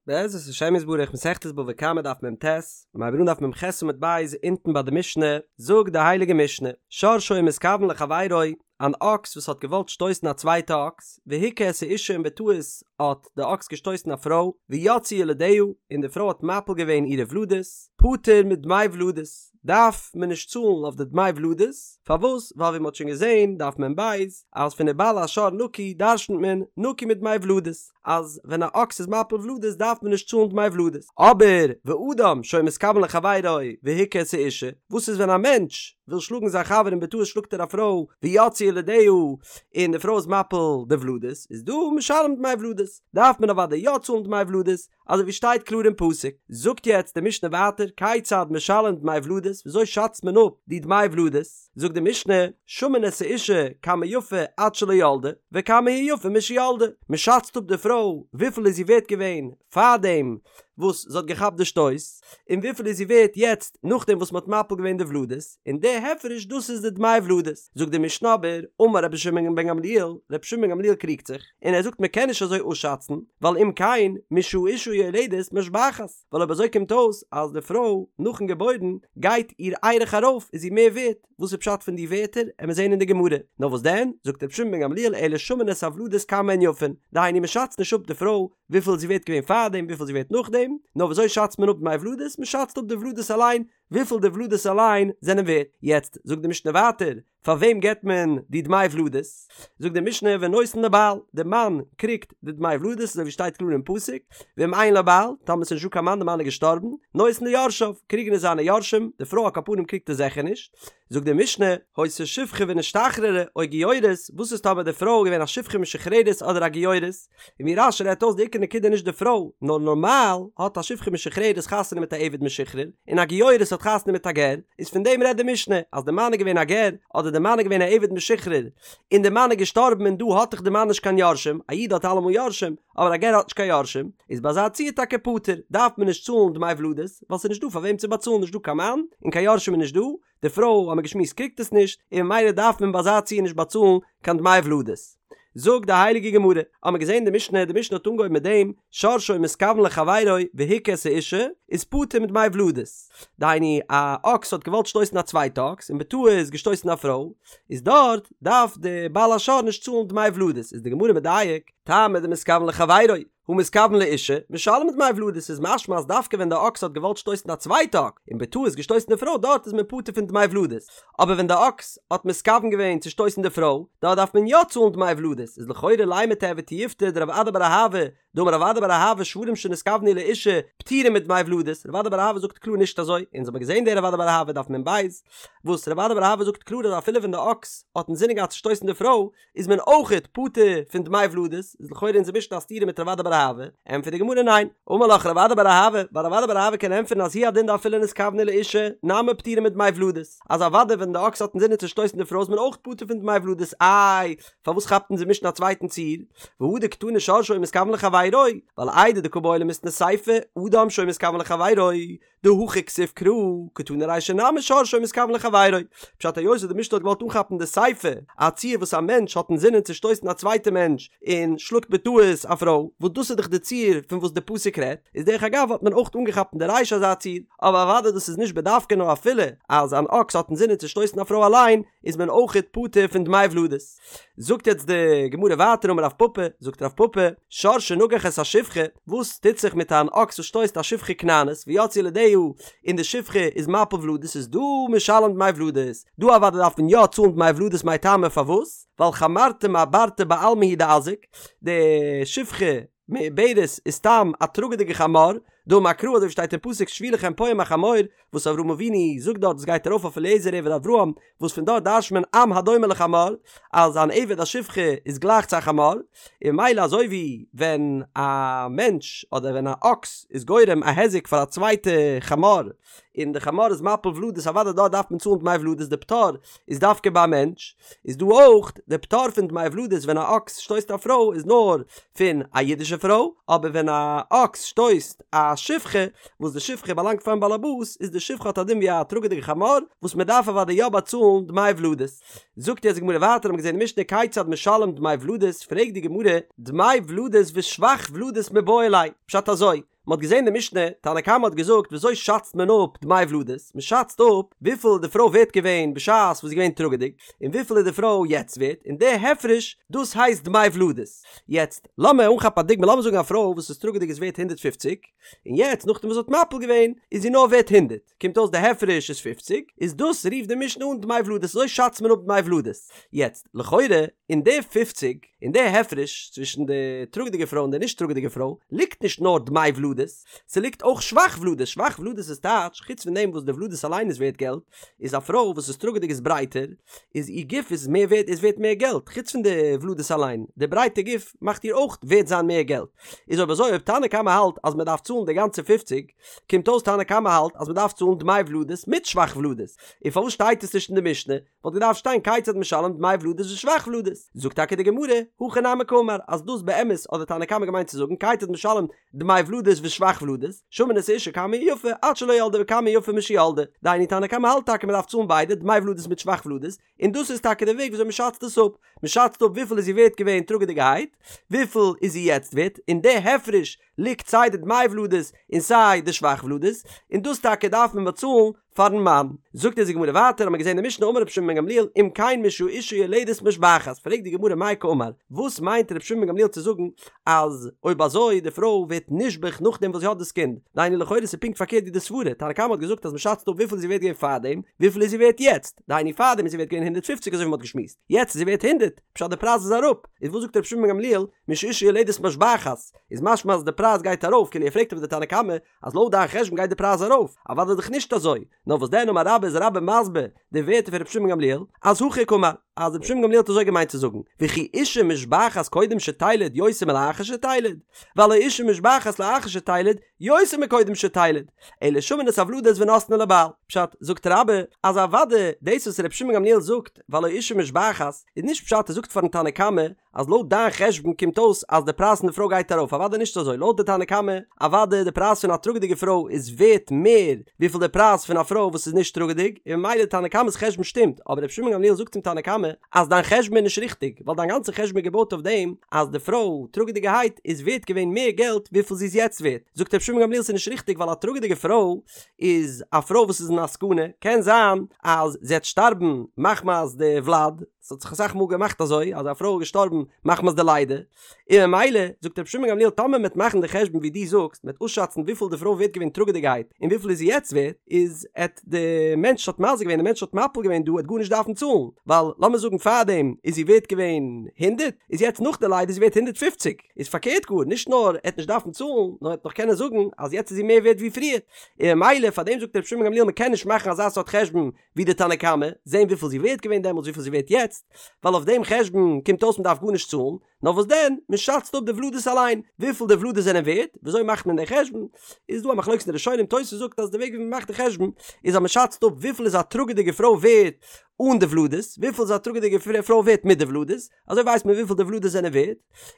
בעזרת השם יתברך מסכת בבא קמא דף מ"ט, מיר הייבן אן דף מ"ח עמוד ב' אונטן ביי די משנה, זאגט די הייליגע משנה, שור שהיה מתכוון לחבירו, אן אקס וואס האט געוואלט שטויסן א צווייטע אקס, והכה את האשה און בטעות האט די אקס געשטויסן א פרוי, ויצאו ילדיה, און די פרוי האט מפיל געווען אירע ולדות, פטור מדמי ולדות, דארף מען נישט צאלן אויף די דמי ולדות, פארוואס? ווייל ווי מען האט שוין געזען, דף מ"ב, אז פון ובעל השור נקי דרשנ'ט מען נקי מדמי ולדות. אז ווען א אקס איז מפיל ולדות דארף מען נישט צאלן דמי ולדות, אבער ואדם שהיה מתכוון לחבירו והכה את האשה, וואס איז ווען א מענטש וויל שלאגן זיין חבר און בטעות שלאגט ער א פרוי ויצאו ילדיה און די פרוי איז מפיל די ולדות, איז דא משלם דמי ולדות, דארף מען אוודאי יא צאלן דמי ולדות, אזוי ווי שטייט קלאר אין פסוק. זאגט יעצט די משנה ווייטער כיצד משלם דמי ולדות, וויאזוי שאצט מען אפ די דמי ולדות? זאגט די משנה, שמין את האשה כמה יפה עד שלא ילדה, וכמה היא יפה משילדה, מען שאצט אפ די פרוי וויפיל איז זי ווערט געווען פארדעם וואס זי האט געכאפט די שטויס, און וויפיל איז זי ווערט יעצט נאכדעם וואס מען האט מפיל געווען די ולדות, און די הפרש דאס איז די דמי ולדות. זאגט די משנה אבער, אמר רבי שמעון בן גמליאל, רבי שמעון בן גמליאל קריגט זיך, און ער זאגט מען קען נישט אזוי אפשאצן, ווייל אם כן משהאשה יולדת משבחת, ווייל אויב אזוי קומט אויס אז די פרוי נאכן געבוירן גייט איר ערך ארויף איז זי מער ווערט, וואס איז פשט פון די ווערטער עמיר זעהן אין די גמרא, נאר וואס דען, זאגט רבי שמעון בן גמליאל אלא שמין את הוולדות כמה הן יפין, דהיינו מען שאצט נישט אפ די פרוי וויפיל זי ווערט געווען פארדעם וויפיל זי ווערט נאכדעם, נאר ווי אזוי שאצט מען אפ דמי ולדות, מען שאצט אפ די ולדות אליין, וויפיל די ולדות אליין זענען ווערט. יעצט זאגט די משנה ווייטער, פאר וועם געבט מען די דמי ולדות? זאגט די משנה ונותן לבעל, די מאן קריגט די דמי ולדות אזוי ווי שטייט קלאר אין פסוק, ואם אין לו בעל, טאמער ס'איז נישטא קיין מאן די מאן איז געשטארבן, נותן ליורשיו, קריגן עס זיינע יורשים, די פרוי על כל פנים קריגט עס זיכער נישט. זאגט די משנה, היתה שפחה ונשתחררה, או גיורת, וואס איז טאמער די פרוי איז געווען א שפחה משוחררת אדער א גיורת? און ווי רש"י רעדט אויס די עיקר נקודה נישט די פרוי, נאר נארמאל האט א שפחה משוחררת חתונה מיט א עבד משוחרר, און א גיורת האט חתונה מיט א גר, איז פון דעם רעדט די משנה, אז די מאן איז געווען א גר, אדער די מאן איז געווען א עבד משוחרר, און די מאן איז געשטארבן און דא האט דאך די מאן נישט קיין יורשים, א איד האט אלעמאל יורשים, אבער א גר האט נישט קיין יורשים, איז ביי אזא ציור טאקע פטור, דארף מען נישט צאלן דמי ולדות, ווייל ס'איז נישט דא פאר וועם צו באצאלן נישט דא קיין מאן, און קיין יורשים איז נישט דא, די פרוי האט מען געשמועסט קריגט עס נישט, און ממילא דארף מען ביי אזא ציור נישט באצאלן קיין דמי ולדות. זאגט די הייליגע גמרא, האט מען געזען די משנה, די משנה האט אנגעהויבן מיט דעם, שור שהיה מתכוון לחבירו והכה את האשה, איז פטור מדמי ולדות. דהיינו, א אקס האט געוואלט שטויסן א צווייטע אקס, און בטעות געשטויסן א פרוי, איז דארט דארף די בעל השור נישט צאלן דמי ולדות, איז די גמרא מדייק, טעמא דמתכוון לחבירו, הא מתכוון לאשה, משלם דמי ולדות איז משמע אז דווקא ווען די אקס האט געוואלט שטויסן א צווייטע אקס און בטעות געשטויסן די פרוי דארט איז מען פטור פון דמי ולדות, אבער ווען די אקס האט מתכוון געווען צו שטויסן די פרוי דארט דארף מען יא צאלן דמי ולדות איז לכאורה לימא תיהוי תיובתא דרב אדא בר אהבה דאמר רב אדא בר אהבה שוורים שנתכוונו לאשה פטורים מדמי ולדות רב אדא בר אהבה זאגט קלאר נישט אזוי אונז האבן געזען דער רב אדא בר אהבה דף מ"ב וואס רב אדא בר אהבה זאגט קלאר אז אפילו ווען די אקס האט אינזינען געהאט צו שטויסן די פרוי איז מען אויכעט פטור פון דמי ולדות, איז לכאורה אונזער משנה א סתירה מיט רב אדא בר אהבה, ענטפערט די גמרא ניין, אמר לך רב אדא בר אהבה, ווייל רב אדא בר אהבה קען ענטפערן אז הוא הדין דאפילו נתכוונו לאשה, נמי פטורים מדמי ולדות, אז אוודאי ווען די אקס האט אינזינען צו שטויסן די פרוי איז מען אויך פטור פון דמי ולדות, איי, פארוואס כאפט אונזער משנה א צווייטן ציור? והא דקתני שור שהיה מתכוון לחבירו, ווייל איידי דקא בעי למיתני סיפא, אדם שהיה מתכוון לחבירו, דהכא כתיב קרא, קתני רישא נמי שור שהיה מתכוון לחבירו. פשט היות וואס די משנה האט געוואלט אנכאפן די סיפא, א ציור וואס א מענטש האט אינזינען צו שטויסן א צווייטע מענטש און שלאגט בטעות א פרוי, וואס דאס איז דאך די ציור פון וואס די פסוק רעדט, איז דרך אגב האט מען אויך אנגעכאפט אין די רישא אזא ציור, אבער אוודאי דאס איז נישט בדווקא נאר אפילו אז אן אקס האט אינזינען צו שטויסן א פרוי אליין איז מען אויכעט פטור פון דמי ולדות. זאגט יעצט די גמרא ווייטער אמר רב פפא, זאגט רב פפא, שור שנגח את השפחה, וואס טוט זיך מיט אן אקס וואס שטויסט א שפחה כנענית, ויצאו ילדיה, און די שפחה איז מפיל ולדות איז דא משלם דמי ולדות, דא אוודאי דארף מען יא צאלן דמי ולדות מאי טעמא פארוואס? ווייל חמרתא מעברתא בעלמא הוא דאזיק, די שפחה מעוברת איז סתם א טראגעדיגע חמור, דאמר קרא אזוי ווי שטייט אין פסוק שבו לכם פה עם החמור, וואס אברהם אבינו זאגט דארט עס גייט ארויף אויף אליעזר עבד אברהם, וואס פון דארט דרש'ט מען עם הדומה לחמור, אז אן עבד א שפחה איז גלייך צו א חמור, און ממילא אזוי ווי ווען א מענטש אדער ווען א אקס איז גורם א היזק פאר א צווייטע חמור, און די חמור איז מפיל ולדות אוודאי דארט דארף מען צאלן דמי ולדות די פטור איז דווקא ביי א מענטש, איז דא אויך די פטור פון דמי ולדות ווען א אקס שטויסט א פרוי איז נאר פון א אידישע פרוי, אבער ווען א אקס שטויסט א שפחה וואס די שפחה באלאנגט פארן באלעבאס איז די שפחה האט א דין ווי א טראגעדיגע חמור וואס מען דארף אוודאי יא באצאלן דמי ולדות. זאגט יעצט די גמרא ווייטער האבן געזען אין משנה כיצד משלם דמי ולדות פרעגט די גמרא דמי ולדות ושבח ולדות מיבעי ליה פשט אזוי. מען האט געזען די משנה, תנא קמא האט געזאגט וויאזוי שאצט מען אפ דמי ולדות, מען שאצט אפ וויפיל איז די פרוי ווערט געווען בשעת וואס זי איז געווען טראגעדיג, און וויפיל איז די פרוי יעצט ווערט, און די הפרש דאס הייסט דמי ולדות. יעצט לאמיר אנכאפן א דוגמא, לאמיר זאגן א פרוי וואס איז טראגעדיג איז ווערט 150, און יעצט נאכדעם וואס זי האט מפיל געווען איז זי נאר ווערט הונדערט, קומט אויס די הפרש איז פופציג, איז דאס רופט די משנה אן דמי ולדות, אזוי שאצט מען אפ דמי ולדות. יעצט, לכאורה, אין די פופציג, אין די הפרש צווישן די טראגעדיגע פרוי און די נישט טראגעדיגע פרוי, ליגט נישט נאר דמי ולדות, ס'ליגט אויך שבח ולדות, שבח ולדות איז טייטש, חוץ פון דעם וואס די ולדות אליין איז ווערט געלט, איז א פרוי וואס איז טראגעדיג איז ברייטער, איז איר גוף איז מער ווערט איז ווערט מער געלט, חוץ פון די ולדות אליין, די ברייטע גוף מאכט איר אויך ווערט זיין מער געלט. איז אויב אזוי אויב תנא קמא האלט אז מען דארף צאלן די גאנצע פופציג, קומט אויס תנא קמא האלט אז מען דארף צאלן דמי ולדות מיט שבח ולדות, און פארוואס שטייט עס נישט אין די משנה? וואלט געדארפט שטיין כיצד משלם דמי ולדות ושבח ולדות. זאגט טאקע די גמרא, הכי נמי קאמר, אז דאס באמת האט די תנא קמא געמיינט צו זאגן כיצד משלם דמי ולדות ושבח ולדות, שמין את האשה כמה היא יפה עד שלא ילדה וכמה היא יפה משילדה, דהיינו תנא קמא האלט טאקע מען דארף צאלן ביידע דמי ולדות מיט שבח ולדות, און דאס איז טאקע די וועג וויאזוי מען שאצט עס אפ, מען שאצט אפ וויפיל איז זי ווערט געווען טראגעדיגערהייט, וויפיל איז זי יעצט ווערט, און די הפרש ליגט סיי די דמי ולדות און סיי די שבח ולדות, און דאס טאקע דארף מען באצאלן פארן מאן. זאגט אונז די גמרא ווייטער, האמיר געזען אין די משנה אמר רבי שמעון בן גמליאל אם כן משהאשה יולדת משבחת, פרעגט די גמרא מאי קאמר, וואס מיינט רבי שמעון בן גמליאל צו זאגן אז אויב אזוי די פרוי ווערט נשבח נאכדעם וואס זי האט דאס קינד, דהיינו לכאורה איז פונקט פארקערט ווי די סברה, תנא קמא האט געזאגט אז מען שאצט אפ וויפיל איז זי ווערט געווען פארדעם, וויפיל איז זי ווערט יעצט, דהיינו פארדעם איז זי ווערט געווען 150 אזוי ווי מען האט געשמועסט, יעצט איז זי ווערט 100, פשט די פרייז איז אראפ, איז וואס זאגט רבי שמעון בן גמליאל משאשה יולדת משבחת, איז משמע אז די פרייז גייט ארויף, כאילו ער פרעגט אויף די תנא קמא אז לויט דיין חשבון גייט די פרייז ארויף, אוודאי דאך נישט אזוי, נאר וואס דען אמר רבה איז רבה מסביר די ווערטער פון רבי שמעון גמליאל, אז הכי קאמר, אז רבי שמעון גמליאל האט אזוי געמיינט צו זאגן, וכי אשה משבחת קודם שתלד יותר מלאחר שתלד, והלא אשה משבחת לאחר שתלד יותר מקודם שתלד, אלא שמין את הוולדות ונותנין לבעל. פשט, זאגט רבה, אז אוודאי דאס וואס רבי שמעון גמליאל זאגט, והלא אשה משבחת, איז נישט פשט ער זאגט פארן תנא קמא, אז לויט דיין חשבון קומט אויס אז די פרייז פון די פרוי גייט ארויף, אוודאי נישט אזוי, לויט די תנא קמא, אוודאי די פרייז פון א טראגעדיגע פרוי איז ווערט מער וויפיל די פרייז פון א פרוי וואס איז נישט טראגעדיג, און ממילא די תנא קמא'ס חשבון שטימט, אבער רבי שמעון גמליאל זאגט צום תנא קמא אז דיין חשבון איז נישט ריכטיג, ווייל דיין גאנצע חשבון איז געבויט אויף דעם אז די פרוי טראגעדיגערהייט איז ווערט געווען מער געלט וויפיל זי איז יעצט ווערט, זאגט רבי שמעון גמליאל ס'איז נישט ריכטיג ווייל א טראגעדיגע פרוי איז א פרוי וואס איז אין א סכנה, קען זיין אז זי וועט שטארבן מחמת די וולד, ס'האט זיך אסאך מאל געמאכט אזוי אז א פרוי איז געשטארבן מחמת די לידה, און ממילא זאגט רבי שמעון גמליאל טאמער מ'עט מאכן די חשבון ווי דו זאגסט, מ'עט אויסשאצן וויפיל די פרוי ווערט געווען טראגעדיגערהייט און וויפיל איז זי יעצט ווערט, איז עט די מענטש האט מזיק געווען די מענטש האט מפיל געווען דא עט גארנישט דארפן צאלן, ווייל לאמיר זאגן פארדעם איז זי ווערט געווען הונדערט, איז יעצט נאך די לידה איז זי ווערט 150, איז פארקערט גאר, נישט נאר עט נישט דארפן צאלן, נאר עט נאך קענען זאגן אז יעצט איז זי מער ווערט ווי פריער, און ממילא פארדעם זאגט רבי שמעון גמליאל מ'קען נישט מאכן אזא סארט חשבון ווי די תנא קמא, זען וויפיל זי ווערט געווען דעמאלטס וויפיל זי ווערט יעצט, ווייל אויף דעם חשבון קומט אויס מ'דארף גארנישט צאלן, נאר וואס דען, מ'שאצט אפ די ולדות אליין, וויפיל די ולדות זענען ווערט, וויאזוי מאכט מען די חשבון, איז דא א מחלוקת אין די ראשונים, תוס' זאגט אז די וועג ווי מ'מאכט די חשבון, איז אז מ'שאצט אפ וויפיל איז א טראגעדיגע פרוי ווערט אן די ולדות, וויפיל איז א טראגעדיגע פרוי ווערט מיט די ולדות, אזוי ווייסט מען וויפיל די ולדות זענען ווערט,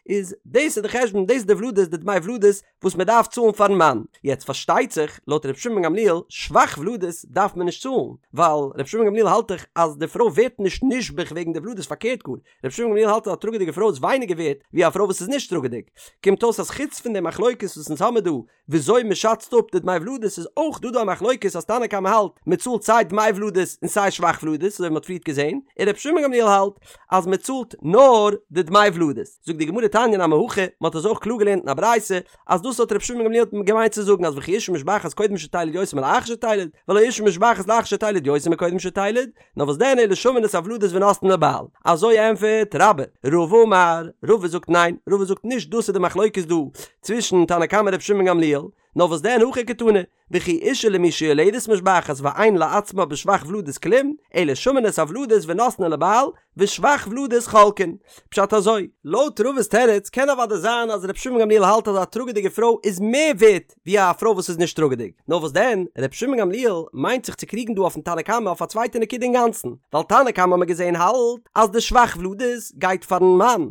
איז דאס איז די חשבון, דאס איז די ולדות, די דמי ולדות, וואס מען דארף צאלן פארן מאן. יעצט פארשטייט זיך, לויט ר' שמעון בן גמליאל, שבח ולדות דארף מען נישט צאלן, ווייל ר' שמעון בן גמליאל האלט דאך אז די פרוי ווערט נישט נשבח וועגן די ולדות, פארקערט גאר, ר' שמעון בן גמליאל האלט אז א טראגעדיגע פרוי איז ווייניגער ווערט ווי א פרוי וואס איז נישט טראגעדיג. קומט אויס אז חוץ פון די מחלוקת וואס אונז האמיר דא וויאזוי מען שאצט אפ די דמי ולדות איז אויך דא דא א מחלוקת אז תנא קמא האלט מען צאלט סיי דמי ולדות און סיי שבח ולדות אזוי ווי מען האט פריערט געזען, און ר' שמעון בן גמליאל האלט אז מען צאלט נאר די דמי ולדות. זאגט די גמרא תניא נמי הכי, מען האט אזוי אויך קלאר געלערנט אין א ברייתא אז דאס האט ר' שמעון בן גמליאל געמיינט צו זאגן אז וכי אשה משבחת קודם שתלד יותר מלאחר שתלד, והלא אשה משבחת לאחר שתלד יותר מקודם שתלד, נאר וואס דען אלא שמין את הוולדות ונותנין לבעל. אזוי ענפערט רבה. רבא אמר, רבא זאגט ניין, רבא זאגט נישט דאס איז די מחלוקת דא צווישן תנא קמא ר' שמעון בן גמליאל, נאר וואס דען הכי קתני, וכי אשה למי שיולדת משבחת ואין לעצמה בשבח ולדות כלום, אלא שמין את הוולדות ונותנין לבעל, ושבח ולדות חולקין. פשט אזוי, לויט רבא'ס תירוץ קען אוודאי זיין אז ר' שמעון גמליאל האלט אז א טראגעדיגע פרוי איז מער ווערט ווי א פרוי וואס איז נישט טראגעדיג, נאר וואס דען, ר' שמעון גמליאל מיינט זיך צו קריגן דא אויפן תנא קמא אויף א צווייטע נקודה אינגאנצן, ווייל תנא קמא האט מען געזען האלט אז די שבח ולדות גייט פארן מאן,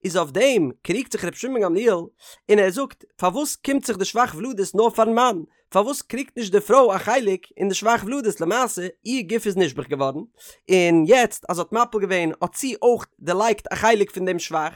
איז אויף דעם קריגט זיך ר' שמעון גמליאל און ער זאגט פארוואס קומט זיך די שבח ולדות נאר פארן מאן, פארוואס קריגט נישט די פרוי א חלק אין די שבח ולדות למעשה איר גוף איז נשבח געווארן און יעצט אז זי האט מפיל געווען האט זי אויך דערלייגט א חלק פון דעם שבח.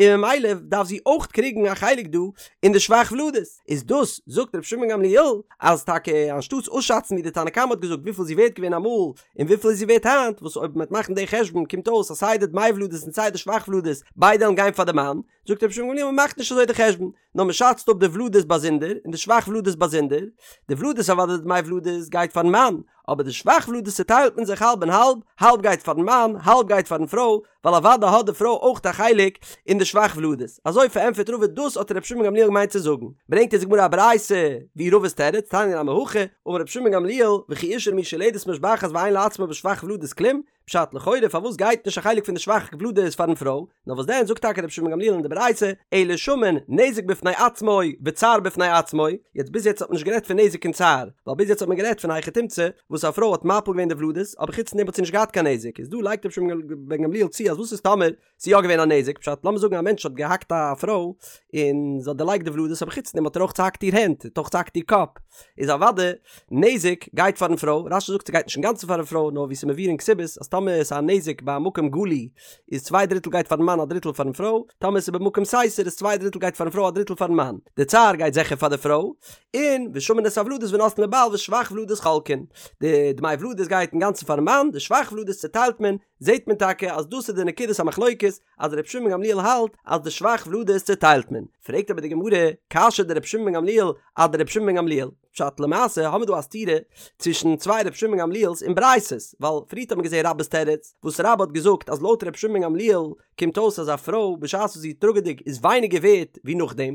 און ממילא דארף זי אויך קריגן א חלק דא אין די שבח ולדות, איז דאס זאגט רבי שמעון גמליאל אז טאקע אנשטאטס אויסשאצן ווי די תנא קמא האט געזאגט וויפיל זי ווערט געווען אמאל און וויפיל איז זי ווערט היינט, וואס אויב מ'וועט מאכן די חשבון קומט אויס אז סיי די דמי ולדות און סיי די שבח ולדות ביידע וועלן גיין פאר די מאן, זאגט רבי שמעון גמליאל מ'מאכט נישט אזוי די חשבון, נאר מ'שאצט אפ די ולדות באזונדער און די שבח ולדות באזונדער, די ולדות אוודאי די דמי ולדות גייט פארן מאן, אבער די שבח ולדות צוטיילט מען זיך האלב און האלב, האלב גייט פארן מאן, האלב גייט פארן פרוי, ווייל אוודאי האט די פרוי אויך א חלק אין די שבח ולדות. אזוי פארענטפערט רבא דאס האט רבי שמעון גמליאל געמיינט צו זאגן. ברענגט אונז די גמרא א ברייתא ווי רבא'ס תירוץ, תניא נמי הכי, אמר רבי שמעון גמליאל, וכי אשה למי שיולדת משבחת ואין לעצמה בשבח ולדות כלום, פשט לכאורה פארוואס גייט נישט א חלק פון די שבח ולדות פארן פרוי, נאר וואס דען זאגט טאקע רבי שמעון גמליאל אין די ברייתא, אלא שמין נזק בפני עצמו וצער בפני עצמו, יעצט ביז יעצט האט מען נישט גערעדט פון נזק און צער, ווייל ביז יעצט האט מען גערעדט פון היכי תמצא וואס א פרוי האט מפיל געווען די ולדות אבער חוץ פון דעם האט זי נישט געהאט קיין נזק, איז דא לייגט רבי שמעון בן גמליאל צו אז וואס איז טאמער ס'איז יא געווען א נזק, פשט לאמיר זאגן א מענטש האט געהאקט א פרוי און זי האט דערלייגט די ולדות אבער חוץ פון דעם האט ער אויך צוהאקט איר הענט, האט אויך צוהאקט איר קאפ, איז אוודאי נזק גייט פארן פרוי, רש"י זאגט ס'גייט נישט אינגאנצן פארן פרוי נאר ווי ס'איז מבואר אין כתובות אז טאמער ס'איז א נזק ביי א מקום גלוי איז צוויי דריטל גייט פארן מאן א דריטל פארן פרוי, טאמער ס'איז במקום סתר איז צוויי דריטל גייט פארן פרוי א דריטל פארן מאן, די צער גייט זיכער פאר די פרוי, און ושמין את הוולדות ונותנין לבעל ושבח ולדות חולקין, די דמי ולדות גייט אינגאנצן פארן מאן, די שבח ולדות צוטיילט מען, זעט מען טאקע אז דאס איז די נקודת המחלוקת אז ר' שמעון גמליאל האלט אז די שבח ולדות צוטיילט מען, פרעגט אבער די גמרא, קשיא דר' שמעון בן גמליאל אדר' שמעון בן גמליאל, פשט למעשה האמיר דא א סתירה צווישן צוויי ר' שמעון בן גמליאל'ס אין ברייתות, ווייל פריערט האט מען געזען רבה'ס תירוץ, וואס רבה האט געזאגט אז לויט ר' שמעון בן גמליאל קומט אויס אז א פרוי בשעת וואס זי איז טראגעדיג איז ווייניגער ווערט ווי נאכדעם,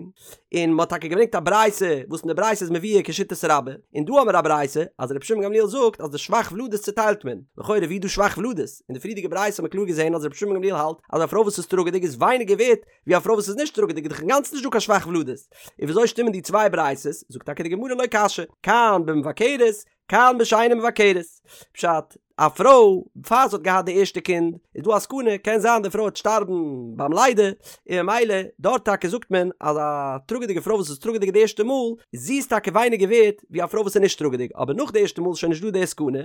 און מ'האט טאקע געברענגט א ברייתא וואס אין די ברייתא איז מבואר כשיטת רבה, און דא האמיר א ברייתא אז ר' שמעון גמליאל זאגט אז די שבח ולדות צוטיילט מען, לכאורה ווי איז דא שבח ולדות? אין די פריערדיגע ברייתא האט מען קלאר געזען אז ר' שמעון גמליאל האלט אז א פרוי וואס איז טראגעדיג איז ווייניגער ווערט ווי א פרוי וואס איז נישט טראגעדיג איז דאך אינגאנצן נישט דא קיין שבח ולדות, און וויאזוי שטימען די צוויי ברייתות? זאגט טאקע די גמרא לא קשיא, כאן במבכרת כאן בשאינה מבכרת. פשט, א פרוי פאר זי האט געהאט די ערשטע קינד איז דא א סכנה קען זיין די פרוי וועט שטארבן ביים לידה און ממילא דארט טאקע זאגט מען אז א טראגעדיגע פרוי וואס איז טראגעדיג די ערשטע מאל זי איז טאקע ווייניגער ווערט ווי א פרוי וואס איז נישט טראגעדיג אבער נאך די ערשטע מאל איז שוין נישט דא די סכנה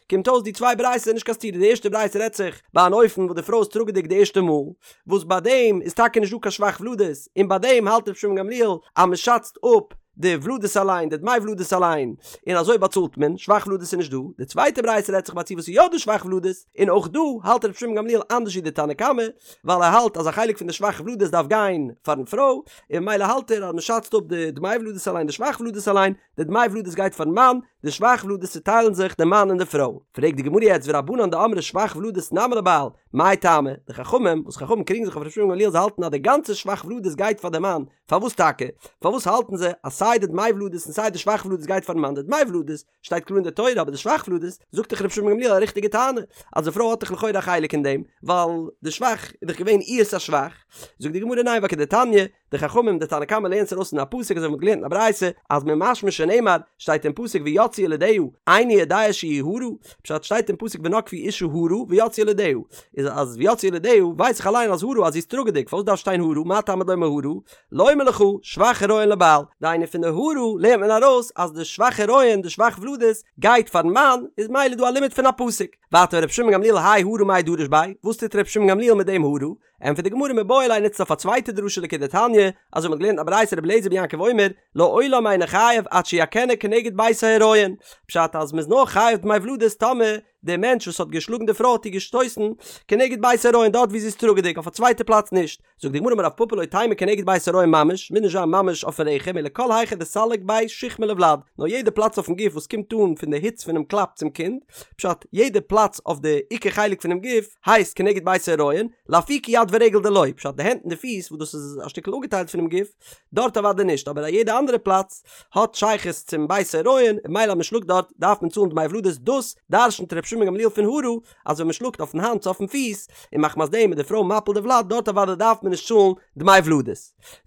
קומט אויס די צוויי ברייתות איז נישט קיין סתירה די ערשטע ברייתא רעדט זיך ביי אן אופן וואס די פרוי איז טראגעדיג די ערשטע מאל וואס ביי דעם איז טאקע נישט דא קיין שבח ולדות און ביי דעם האלט רבי שמעון גמליאל אז מען שאצט אפ די ולדות אליין, די דמי ולדות אליין, און אזוי באצאלט מען, שבח ולדות איז נישט דא, די צווייטע ברייתא רעדט זיך ביי א ציור וואס איז יא דא שבח ולדות, און אויך דא האלט רבי שמעון גמליאל אנדערש ווי די תנא קמא, ווייל ער האלט אז א חלק פון די שבח ולדות דארף גיין פארן פרוי, און ממילא האלט ער אז מען שאצט אפ די דמי ולדות אליין די שבח ולדות אליין, די דמי ולדות גייט פארן מאן, די שבח ולדות צוטיילן זיך די מאן און די פרוי. פרעגט די גמרא יעצט ורבנן דאמרי שבח ולדות נמי לבעל, מאי טעמא, די חכמים, וואס חכמים קריגן זיך אויף רבי שמעון גמליאל זיי האלטן אז די גאנצע שבח ולדות גייט פאר די מאן, פארוואס טאקע? פארוואס האלטן זיי אז סיי די דמי ולדות און סיי די שבח ולדות גייט פארן מאן? די דמי ולדות שטייט קלאר אין די תורה אבער די שבח ולדות זאגט דאך רבי שמעון בן גמליאל א ריכטיגע טענה אז די פרוי האט דאך לכאורה א חלק אין דעם ווייל די שבח איז דאך געווען איהר'ס א שבח. זאגט די גמרא ניין ווייל כדתניא די חכמים די תנא קמא לערנט עס ארויס פון א פסוק אזוי ווי מ'האט געלערנט אין א ברייתא אז ממשמע שנאמר שטייט אין פסוק ויצאו ילדיה איני יודע שהיא הרה פשט שטייט אין פסוק ונגפו אשה הרה ויצאו ילדיה איז אז ויצאו ילדיה ווייס איך אליין אז הרה אז זי איז טראגעדיג פארוואס דארף שטיין הרה מה תלמוד לומר הרה לומר לך שבח הריון לבעל דהיינו פון די הרה לערנט מען ארויס אז די שבח הריון די שבח ולדות גייט פארן מאן איז ממילא דא א לימוד פון א פסוק ווייטער ר' שמעון גמליאל האי הרה מאי דריש ביה וואס טוט ר' שמעון גמליאל מיט דעם הרה ענטפערט די גמרא מיבעי ליה נוצט אויף א צווייטע דרשה לכדתניא, אזוי מ'האט געלערנט א ברייתא רבי אליעזר בן יעקב אומר, לעולם אינו חייב עד שיכנה כנגד בית ההריון, פשט אז מ'איז נאר חייב דמי ולדות טאמער דער מענטש וואס האט געשלאגן די פרוי האט איר געשטויסן כנגד בית ההריון דארט ווי זי איז טראגעדיג אויף א צווייטע פלאץ נישט, זאגט די גמרא אמר רב פפא לא תימא כנגד בית ההריון ממש, מוז נישט זיין ממש אויפן רחם אלא כל היכא דסליק ביה שיחמא לוולד, נאר יעדע פלאץ אויפן גוף וואס קומט אן פון די היץ פונעם קלאפ צום קינד, פשט יעדע פלאץ אויף די עיקר חלק פונעם גוף, הייסט כנגד בית ההריון, לאפוקי יד ורגל דלא, פשט די הענט און די פיס וואס דאס איז א שטיקל אפגעטיילט פונעם גוף, דארט אוודאי נישט, אבער א יעדע אנדערע פלאץ האט שייכות צום בית ההריון, און ממילא אז מען שלאגט דארט דארף מען צאלן דמי ולדות, דאס דרשנ'ט ר' שמעון גמליאל פון הרה, אז ווען מען שלאגט אויפן האנט צו אויפן פיס, און מחמת דעם איז די פרוי מפיל די ולד, דארט אוודאי דארף מען נישט צאלן דמי ולדות.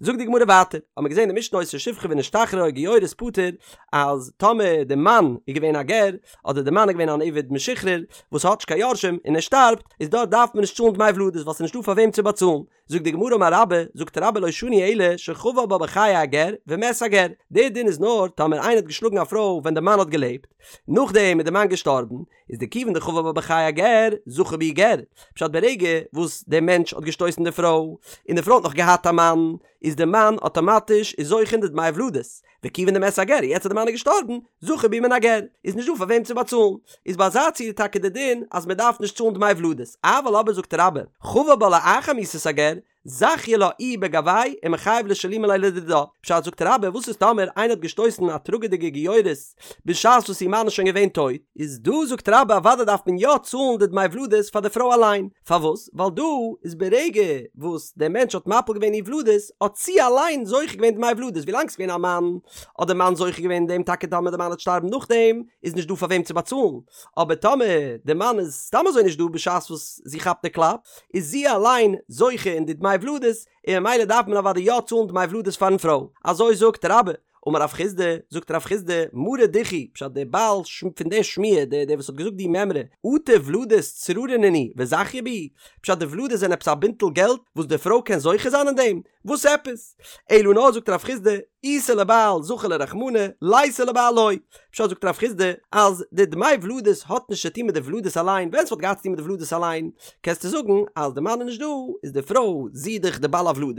זאגט די גמרא ווייטער, האט מען געזען אין משנה היתה שפחה ונשתחררה או גיורת פטור, אז טאמער די מאן איז געווען א גר, אדער די מאן איז געווען אן עבד משוחרר, וואס האט נישט קיין יורשים, און ער שטארבט, איז דארט דארף מען נישט צאלן דמי ולדות, ווייל ס'איז נישטא פאר וועם צו באצאלן. זאגט די גמרא אמר רבה, זאגט רבה לא שנו אלא שחבל בה בחיי הגר ומת הגר, דער דין איז נאר טאמער איינער האט געשלאגן א פרוי ווען די מאן האט געלעבט, נאכדעם איז די מאן געשטארבן, איז דכיון דחבל בה בחיי הגר, זכה בהו גר, פשט ברגע וואס דער מענטש האט געשטויסן די פרוי, און די פרוי האט נאך געהאט א מאן, איז די מאן אטאמאטיש איז זוכה אין די דמי ולדות, וכיון דמת הגר, יעצט אז די מאן איז געשטארבן, זכה בהו מן הגר, איז נישט דא פאר וועם צו באצאלן, איז ביי אזא ציור טאקע די דין אז מען דארף נישט צאלן דמי ולדות, אבל אבער זאגט רבה, חבל בה לאחר מיתת הגר, זכיא לה איהו בגויה ומחייב לשלומי ליה לדידה, פשט זאגט רבה וואס איז טאמער איינער האט געשטויסן א טראגעדיגע גיורת בשעת וואס איר מאן איז שוין געווען טויט, איז דא זאגט רבה אוודאי דארף מען יא צאלן די דמי ולדות פאר די פרוי אליין, פארוואס? ווייל דא איז ברגע וואס דער מענטש האט מפיל געווען איר ולדות האט זי אליין זוכה געווען דמי ולדות, ווילאנג ס'איז געווען א מאן האט דער מאן זוכה געווען אין דעם טאקע טאמער דער מאן וועט שטארבן נאכדעם איז נישט דא פאר וועם צו באצאלן, אבער טאמער דער מאן איז סתם אזוי נישט דא בשעת וואס זי כאפט די קלאפ איז זי אליין זוכה אין די דמי ולדות און ממילא דארף מען אוודאי יא צאלן דמי ולדות פארן פרוי, אזוי זאגט רבה. אמר רב חסדא, זאגט רב חסדא, מרא דכי, פשט דער בעל פון דער שמועה, דער דער וואס האט געזאגט די מימרא, אטו ולדות צררי נינהו וזכיא בהו, פשט די ולדות זענען עפעס א בינטל געלט וואס די פרוי קען זוכה זיין אין דעם? וואס עפעס? אלא נאר זאגט רב חסדא, איתא לבעל זכי ליה רחמנא, ליתא לבעל לא. פשט זאגט רב חסדא, אז די דמי ולדות האט נישט צו טון מיט די ולדות אליין, ווען ס'וואלט געהאט צו טון מיט די ולדות אליין, קענסטו זאגן אז די מאן איז נישט דא, איז די פרוי זי דאך די בעל הוולדות,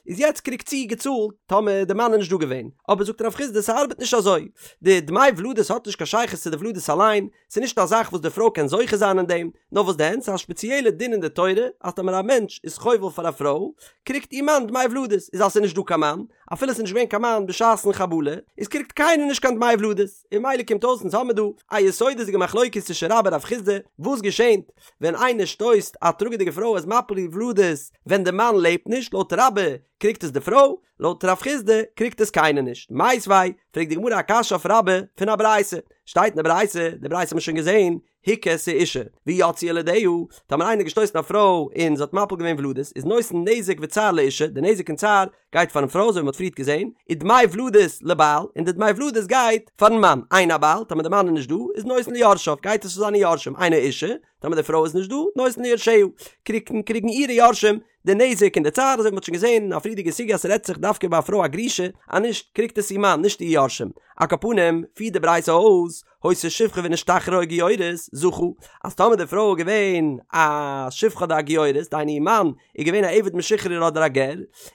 איז יעצט קריגט זי געצאלט טאמער די מאן איז נישט דא געווען, אבער זאגט רב חסדא ס'ארבעט נישט אזוי, די דמי ולדות האט נישט קיין שייכות צו די ולדות אליין, ס'איז נישט א זאך וואס די פרוי קען זוכה זיין אין דעם, נאר וואס דען ס'איז א שפעציעלע דין אין די תורה אז טאמער א מענטש איז חובל פאר א פרוי קריגט איר מאן דמי ולדות, איז אז ס'איז נישט דא קיין מאן, אפילו ס'איז נישט געווען קיין מאן בשעת'ן חבלה, איז קריגט קיינער נישט קיין דמי ולדות, און ממילא קומט אויס אונז האמיר דא א יסודות'דיגע מחלוקת צווישן רבה און רב חסדא, וואס געשענט ווען איינער שטויסט א טראגעדיגע פרוי איז מפיל איר ולדות ווען די מאן לעבט נישט, לויט רבה קריגט עס די פרוי, לויט רב חסדא קריגט עס קיינער נישט. מיתיבי, פרעגט די גמרא א קשיא אויף רבה פון א ברייתא, שטייט אין די ברייתא, די ברייתא האט מען שוין געזען, הכה את האשה, ויצאו ילדיה, טאמער איינער האט געשטויסן א פרוי און זי האט מפיל געווען ולדות, איז נותן נזק וצער לאשה, די נזק און צער גייט פארן פרוי אזוי ווי מען האט פריערט געזען, ודמי ולדות לבעל, און די דמי ולדות גייט פארן מאן, אין הבעל, טאמער די מאן איז נישט דא, איז נותן ליורשיו, גייט עס צו זיינע יורשים, אין האשה, טאמער די פרוי איז נישט דא, נותן ליורשיה, קריגן קריגן אירע יורשים די נזק און די צער, אזוי ווי מען האט שוין געזען אין א פריערדיגע סוגיא אז ס'רעדט זיך דווקא ביי א פרוי א גרושה, אז נישט קריגט עס איר מאן, נישט איר יורשים. על כל פנים, פירט די ברייתא אויס, היתה שפחה ונשתחררה או גיורת, זכה, אז טאמער די פרוי איז געווען א שפחה אדער א גיורת, דהיינו איר מאן איז געווען א עבד משוחרר אדער א גר,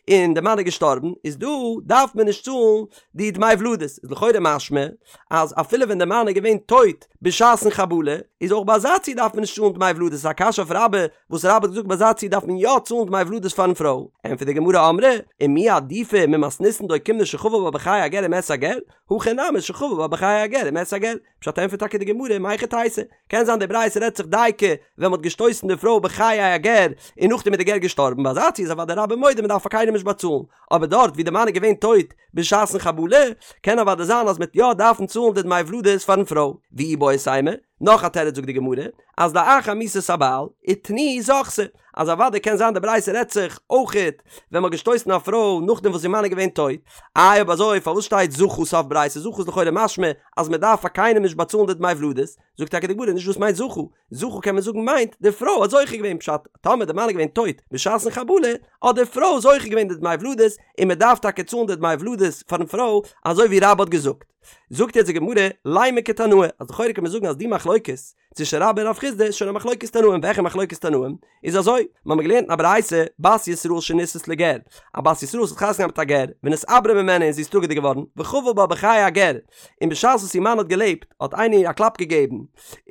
און די מאן איז געשטארבן, איז דא דארף מען נישט צאלן די דמי ולדות, איז לכאורה משמע אז אפילו ווען די מאן איז געווען טויט בשעת'ן חבלה, איז אויך ביי אזא ציור דארף מען נישט צאלן דמי ולדות, איז א קשיא אויף רבה, וואס רבה האט געזאגט ביי אזא ציור דארף מען יא צאלן דמי ולדות פארן פרוי, ענטפערט די גמרא אמרי, ומי עדיפא ממתניתין דאוקימנא שחבל בה בחיי הגר ומת הגר, הכא נמי שחבל בה בחיי הגר ומת הגר, פשט ענטפערט טאקע די גמרא מהיכי תיתי, קען זיין די ברייתא רעדט זיך דייקא ווען מ'האט געשטויסן די פרוי בחיי הגר און נאכדעם איז די גר געשטארבן, ביי אזא ציור איז אוודאי רבה מודה מ'דארף פאר קיינעם נישט באצאלן, אבער דארט ווי די מאן איז געווען טויט בשעת'ן חבלה, קען אוודאי זיין אז מ'עט יא דארפן צאלן די דמי ולדות פארן פרוי. ואיבעית אימא, נאך א תירוץ זאגט די גמרא, אז לאחר מיתת הבעל, ותני זכתה, אז אוודאי קען זיין די ברייתא רעדט זיך אויכעט ווען מ'האט געשטויסן א פרוי נאכדעם וואס איר מאן איז געווען טויט, איי אויב אזוי פארוואס שטייט זכה סוף ברייתא זכה איז לכאורה משמע אז מ'דארף פאר קיינעם נישט באצאלן די דמי ולדות, זאגט טאקע די גמרא נישט דאס מיינט זכה, זכה קען מען זאגן מיינט די פרוי האט זוכה געווען פשט טאמער די מאן איז געווען טויט בשעת'ן חבלה האט די פרוי זוכה געווען די דמי ולדות און מען דארף טאקע צאלן די דמי ולדות פארן פרוי אזוי ווי רבה האט געזאגט. זאגט יעצט די גמרא לימא כתנאי אז לכאורה קען מען זאגן אז די מחלוקת צווישן רבה און רב חסדא איז שוין א מחלוקת תנאים וועלכע מחלוקת תנאים איז אזוי מיר האבן געלערנט אין א ברייתא בת ישראל שנישאת לגר א בת ישראל וואס האט חתונה געהאט מיט א גר ונתעברה ממנו און זי איז טראגעדיג געווארן וחבל בה בחיי הגר און בשעת וואס איר מאן האט געלעבט האט איינער איר א קלאפ געגעבן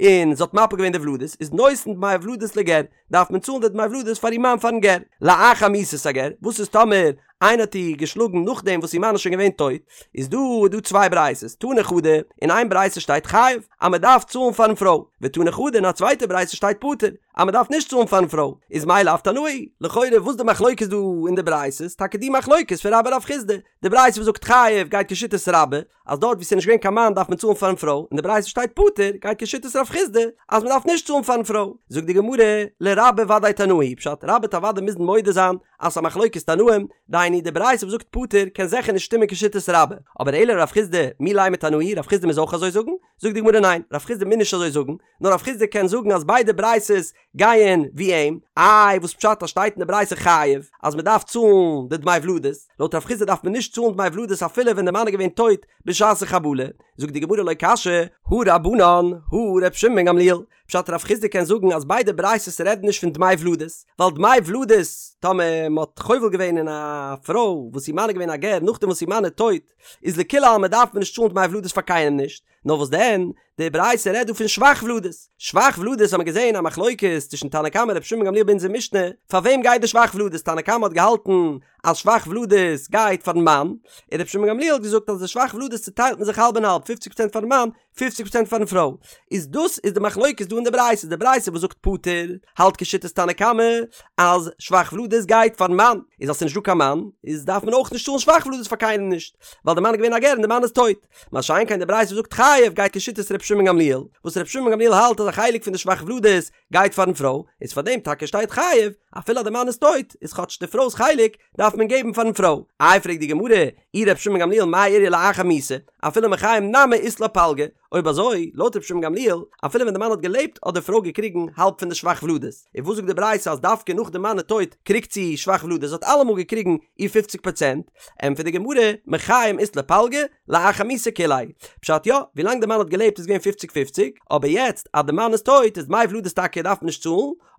און זי האט מפיל געווען די ולדות, איז נותן דמי ולדות לגר, דארף מען צאלן די דמי ולדות פאר איר מאן פארן גר. לאחר מיתת הגר, וואס איז טאמער איינער האט איר געשלאגן נאכדעם וואס איר מאן איז שוין געווען טויט, איז דא איז דא צוויי ברייתות, תני חדא, אין איין ברייתא שטייט חייב, אז מען דארף צאלן פארן פרוי, ותני חדא אין א צווייטע ברייתא שטייט פטור, אז מען דארף נישט צאלן פארן פרוי, איז מאי לאו תנאי, לכאורה וואס די מחלוקת דא אין די ברייתות, טאקע די מחלוקת פון רבה רב חסדא, די ברייתא וואס זאגט חייב גייט כשיטת רבה, אז דארט וואו ס'איז נישט געווען קיין מאן דארף מען צאלן פארן פרוי, און די ברייתא שטייט פטור, גייט כשיטת רב חסדא אז מ'דארף נישט צאלן פארן פרוי. זאגט די גמרא, לרבה ודאי תנאי היא, פשט, רבה וועט אוודאי מוזן מודה זיין אז ס'איז א מחלוקת תנאים, דהיינו די ברייתא וואס זאגט פטור קען זיכער נישט שטימען כשיטת רבה, אבער אלא לרב חסדא מי לימא תנאי היא, רב חסדא מוז אויך אזוי זאגן? זאגט די גמרא ניין, רב חיסדא מוז נישט אזוי זאגן, נאר רב חיסדא קען זאגן אז ביידע ברייתות גייען ווי אים, איי וואס פשט אז שטייט אין די ברייתא חייב אז מען דארף צאלן די דמי ולדות, לויט רב חיסדא דארף מען נישט צאלן דמי ולדות אפילו ווען די מאן איז געווען טויט בשעת החבלה, זאגט די גמרא לא קשיא, הא רבנן, הא ר' שמעון בן גמליאל, פשט רב חיסדא קען זאגן אז ביידע ברייתות רעדן נישט פון דמי ולדות, ווייל דמי ולדות, טאמער מען האט חובל געווען אין א פרוי וואס איר מאן איז געווען א גר נאכדעם וואס איר מאן איז טויט, איז לכולי עלמא דארף מען נישט צאלן דמי ולדות פאר קיינעם נישט, נאר וואס דען, די ברייתא רעדט דא פון שבח ולדות, שבח ולדות האט מען געזען א מחלוקת צווישן תנא קמא רבי שמעון בן גמליאל ביי אונזער משנה, פאר וועם גייט די שבח ולדות, תנא קמא האט געהאלטן אז שבח ולדות גייט פארן מאן, און רבי שמעון בן גמליאל האט געזאגט אז די שבח ולדות צוטיילט מען זיך האלב און האלב, פופציג פראצענט פארן מאן, פופציג פראצענט פארן פרוי, איז דאס איז די מחלוקת דא אין די ברייתא, די ברייתא וואס זאגט פטור, האלט כשיטת תנא קמא אז שבח ולדות גייט פארן מאן, איז אז ס'איז נישט דא קיין מאן, איז דארף מען אויך נישט צאלן שבח ולדות פאר קיינעם נישט, ווייל די מאן איז געווען א גר און די מאן איז טויט. מה שאין כן די ברייתא וואס זאגט חייב גייט כשיטת ר' שמעון גמליאל, וואס ר' שמעון גמליאל האלט אז א חלק פון די שבח ולדות גייט פארן פרוי, איז פאר דעם טאקע שטייט חייב, אפילו אז די מאן איז טויט, איז כאטש די פרוי'ס חלק דארף מען געבן פארן פרוי. איי פרעגט די גמרא, אי ר' שמעון גמליאל מאי איריא לאחר מיתה, אפילו מחיים נמי אית לה פלגא, אויב אזוי, לויט ר' שמעון גמליאל, אפילו ווען די מאן האט געלעבט האט די פרוי געקריגן האלב פון די שבח ולדות, און וואס זאגט די ברייתא אז דווקא נאך די מאן איז טויט קריגט זי שבח ולדות, זי האט אלעמאל געקריגן איר פופציג פראצענט, ענטפערט די גמרא, מחיים אית לה פלגא, לאחר מיתה כוליה. פשט יא, ווילאנג די מאן האט געלעבט איז געווען פופציג פופציג, אבער יעצט אז די מאן איז טויט איז דמי ולדות טאקע דארף מען נישט צאלן,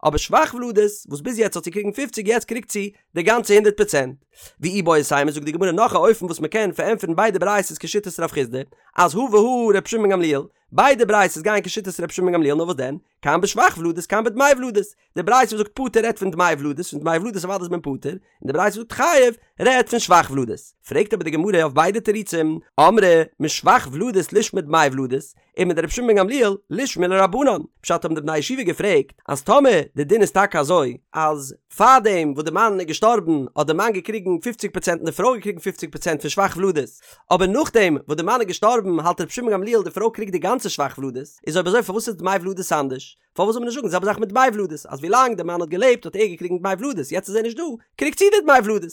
אבער שבח ולדות, וואס ביז יעצט האט זי געקריגן פופציג יעצט קריגט זי די גאנצע הונדערט פראצענט. ואיבעית אימא זאגט די גמרא נאך א אופן וואס מען קען פארענטפערן ביידע ברייתות כשיטת רב חיסדא, אז הא והא ר' שמעון גמליאל, ביידע ברייתות גייען כשיטת ר' שמעון גמליאל נאר וואס דען, כאן בשבח ולדות כאן בדמי ולדות, די ברייתא וואס זאגט פטור רעדט פון דמי ולדות, פון דמי ולדות אוודאי איז מען פטור, און די ברייתא וואס זאגט חייב רעדט פון שבח ולדות. פרעגט אבער די גמרא אויף ביידע תירוצים, אמרי משבח ולדות לישמע דמי ולדות, ומדרבי שמעון בן גמליאל לישמעו לרבנן, פשט האבן די בני ישיבה געפרעגט אז טאמער די דין איז טאקע אזוי אז פארדעם וואס די מאן איז געשטארבן האט די מאן געקריגן פופציג פראצענט און די פרוי געקריגן פופציג פראצענט פון שבח ולדות, אבער נאכדעם וואס די מאן איז געשטארבן האלט רבי שמעון גמליאל די פרוי קריגט די גאנצע שבח ולדות, איז אויב אזוי פארוואס איז דמי ולדות אנדערש? פארוואס זאל מען נישט זאגן די זעלבע זאך מיט דמי ולדות אז ווילאנג די מאן האט געלעבט האט ער געקריגן דמי ולדות יעצט איז ער נישט דא קריגט זי די דמי ולדות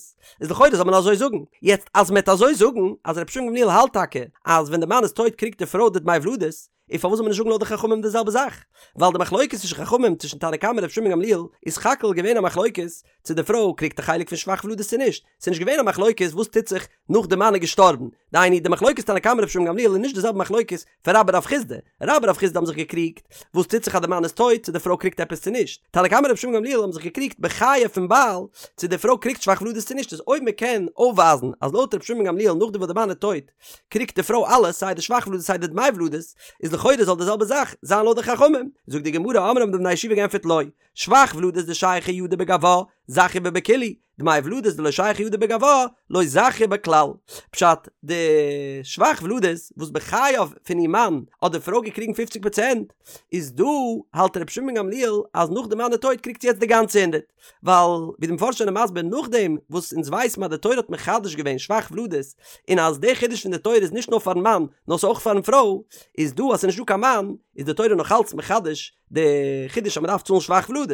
איז לכאורה זאל מען אזוי זאגן יעצט אז מען וועט אזוי זאגן אז רבי שמעון גמליאל האלט טאקע אז ווען די מאן איז טויט קריגט די פרוי די דמי ולדות איז פארוואס זאל מען נישט זאגן לויט די חכמים די זעלבע זאך ווייל די מחלוקת צווישן חכמים צווישן תנא קמא און רבי שמעון גמליאל איז סך הכל געווען א מחלוקת צו די פרוי קריגט א חלק פון שבח ולדות צו נישט ס'איז נישט געווען א מחלוקת וואס טוט זיך נאך די מאן איז געשטארבן דהיינו די מחלוקת תנא קמא רבי שמעון גמליאל איז נישט די זעלבע מחלוקת פון רבה רב חיסדא, רבה רב חיסדא האבן זיך געקריגט וואס טוט זיך אז די מאן איז טויט צו די פרוי קריגט עפעס צו נישט, תנא קמא רבי שמעון גמליאל האבן זיך געקריגט בחייו פון בעל צו די פרוי קריגט שבח ולדות צו נישט, איז אויב מען קען אויפווייזן אז לויט רבי שמעון גמליאל נאכדעם וואס די מאן איז טויט קריגט די פרוי אלעס סיי די שבח ולדות סיי די דמי ולדות, איז לכאורה זאל די זעלבע זאך זיין לויט די חכמים, זאגט די גמרא אמרי האבן די בני ישיבה געענטפערט לא, שבח ולדות דשייכא ידה בגבה, זכיא בה בכולהו, דמי ולדות דלא שייכא ידה בגבה, לא זכיא בה כלל. פשט, די שבח ולדות וואס בחייו פון איר מאן האט די פרוי געקריגן פופציג פראצענט, איז דא האלט רבי שמעון גמליאל אז נאך די מאן איז טויט קריגט זי יעצט די גאנצע הונדערט, ווייל ווי די מפרשים זענען מסביר נאכדעם וואס אונז ווייסן אז די תורה האט מחדש געווען שבח ולדות און אז די חידוש פון די תורה איז נישט נאר פארן מאן נאר ס'איז אויך פארן פרוי, איז דא אז ס'איז נישט דא קיין מאן איז די תורה נאכאלץ מחדש די חידוש אז מ'דארף צאלן שבח ולדות.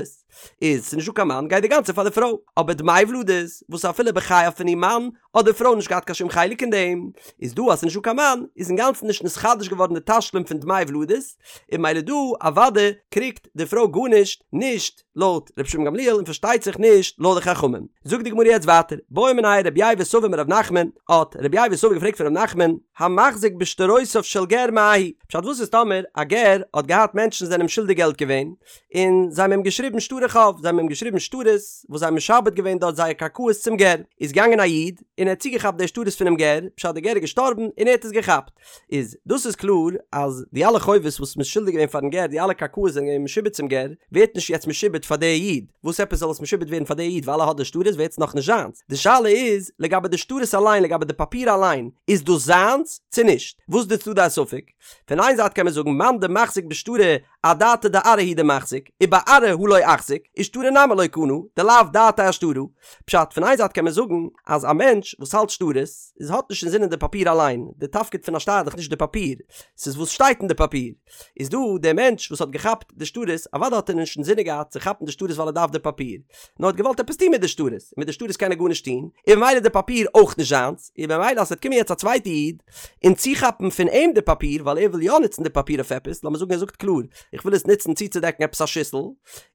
איז ס'איז נישטא קיין מאן גייט די גאנצע פאר די פרוי, אבער דמי ולדות וואס אפילו בחייו פון איר מאן האט די פרוי נישט געהאט קיין שום חלק אין דעם, איז דא אז ס'איז נישטא קיין מאן איז אינגאנצן נישט נתחדש געווארן די תשלום פון דמי ולדות, און ממילא דא אוודאי קריגט די פרוי גארנישט, נישט לויט רבי שמעון גמליאל און פארשטייט זיך נישט לויט די חכמים. זאגט די גמרא יעצט ווייטער, בעא מיניה רבי ייבא סבא מרב נחמן, האט רבי ייבא סבא געפרעגט פון רב נחמן, המחזיק בשטרותיו של גר מהו, פשט וואס איז טאמער א גר האט געהאט מענטשן זענען אים שולדיג געלט געווען, און זיי האבן אים געשריבן שטרי חוב, זיי האבן אים געשריבן שטרות וואס זיי האבן משעבד געווען דארט זייער קרקעות צום גר, איז געגאנגען א איד און ער האט צוגעכאפט די שטרות פונעם גר, פשט די גר איז געשטארבן און ער האט עס געכאפט, איז דאס איז קלאר אז די אלע חובות וואס מ'איז שולדיג געווען פארן גר, די אלע קרקעות זענען געווען משועבד צום גר, ווערט נישט יעצט משועבד פאר די איד, וואס עפעס זאל עס משועבד ווערן פאר די איד ווייל ער האט די שטרות ווערט עס נאכנישט זיינס, די שאלה איז לגבי די שטרות אליין לגבי די פאפיר אליין, איז דאס זיינס צו נישט? וואס איז די צדדי הספק? פון איין זייט קען מען זאגן מאן דמחזיק בשטרא אדעתא דארעא הוא דמחזיק, ובארעא הא לא אחזיק, ושטרא נמי לא קנה, דלאו דעתיה אשטרא. פשט, פון איין זייט קען מען זאגן אז א מענטש. מענטש וואס האלט שטרות איז האט נישט אינזינען די פאפיר אליין, די תפקיד פון א שטר איז דאך נישט די פאפיר, ס'איז וואס שטייט אין די פאפיר. איז דא דער מענטש וואס האט געכאפט די שטרות, אוודאי האט ער נישט אינזינען געהאט צו כאפן די שטרות ווייל ער דארף די פאפיר, נאר האט געוואלט עפעס טון מיט די שטרות, און מיט די שטרות קען ער גארנישט טון, און ממילא איז די פאפיר אויך נישט זיינס, און ממילא אז ס'וועט קומען יעצט א צווייטע איד און צוכאפן פון אים די פאפיר ווייל ער וויל יא נוצן די פאפיר אויף עפעס, לאמיר זאגן ער זאגט קלאר איך וויל עס נוצן צוצודעקן עפעס א שיסל,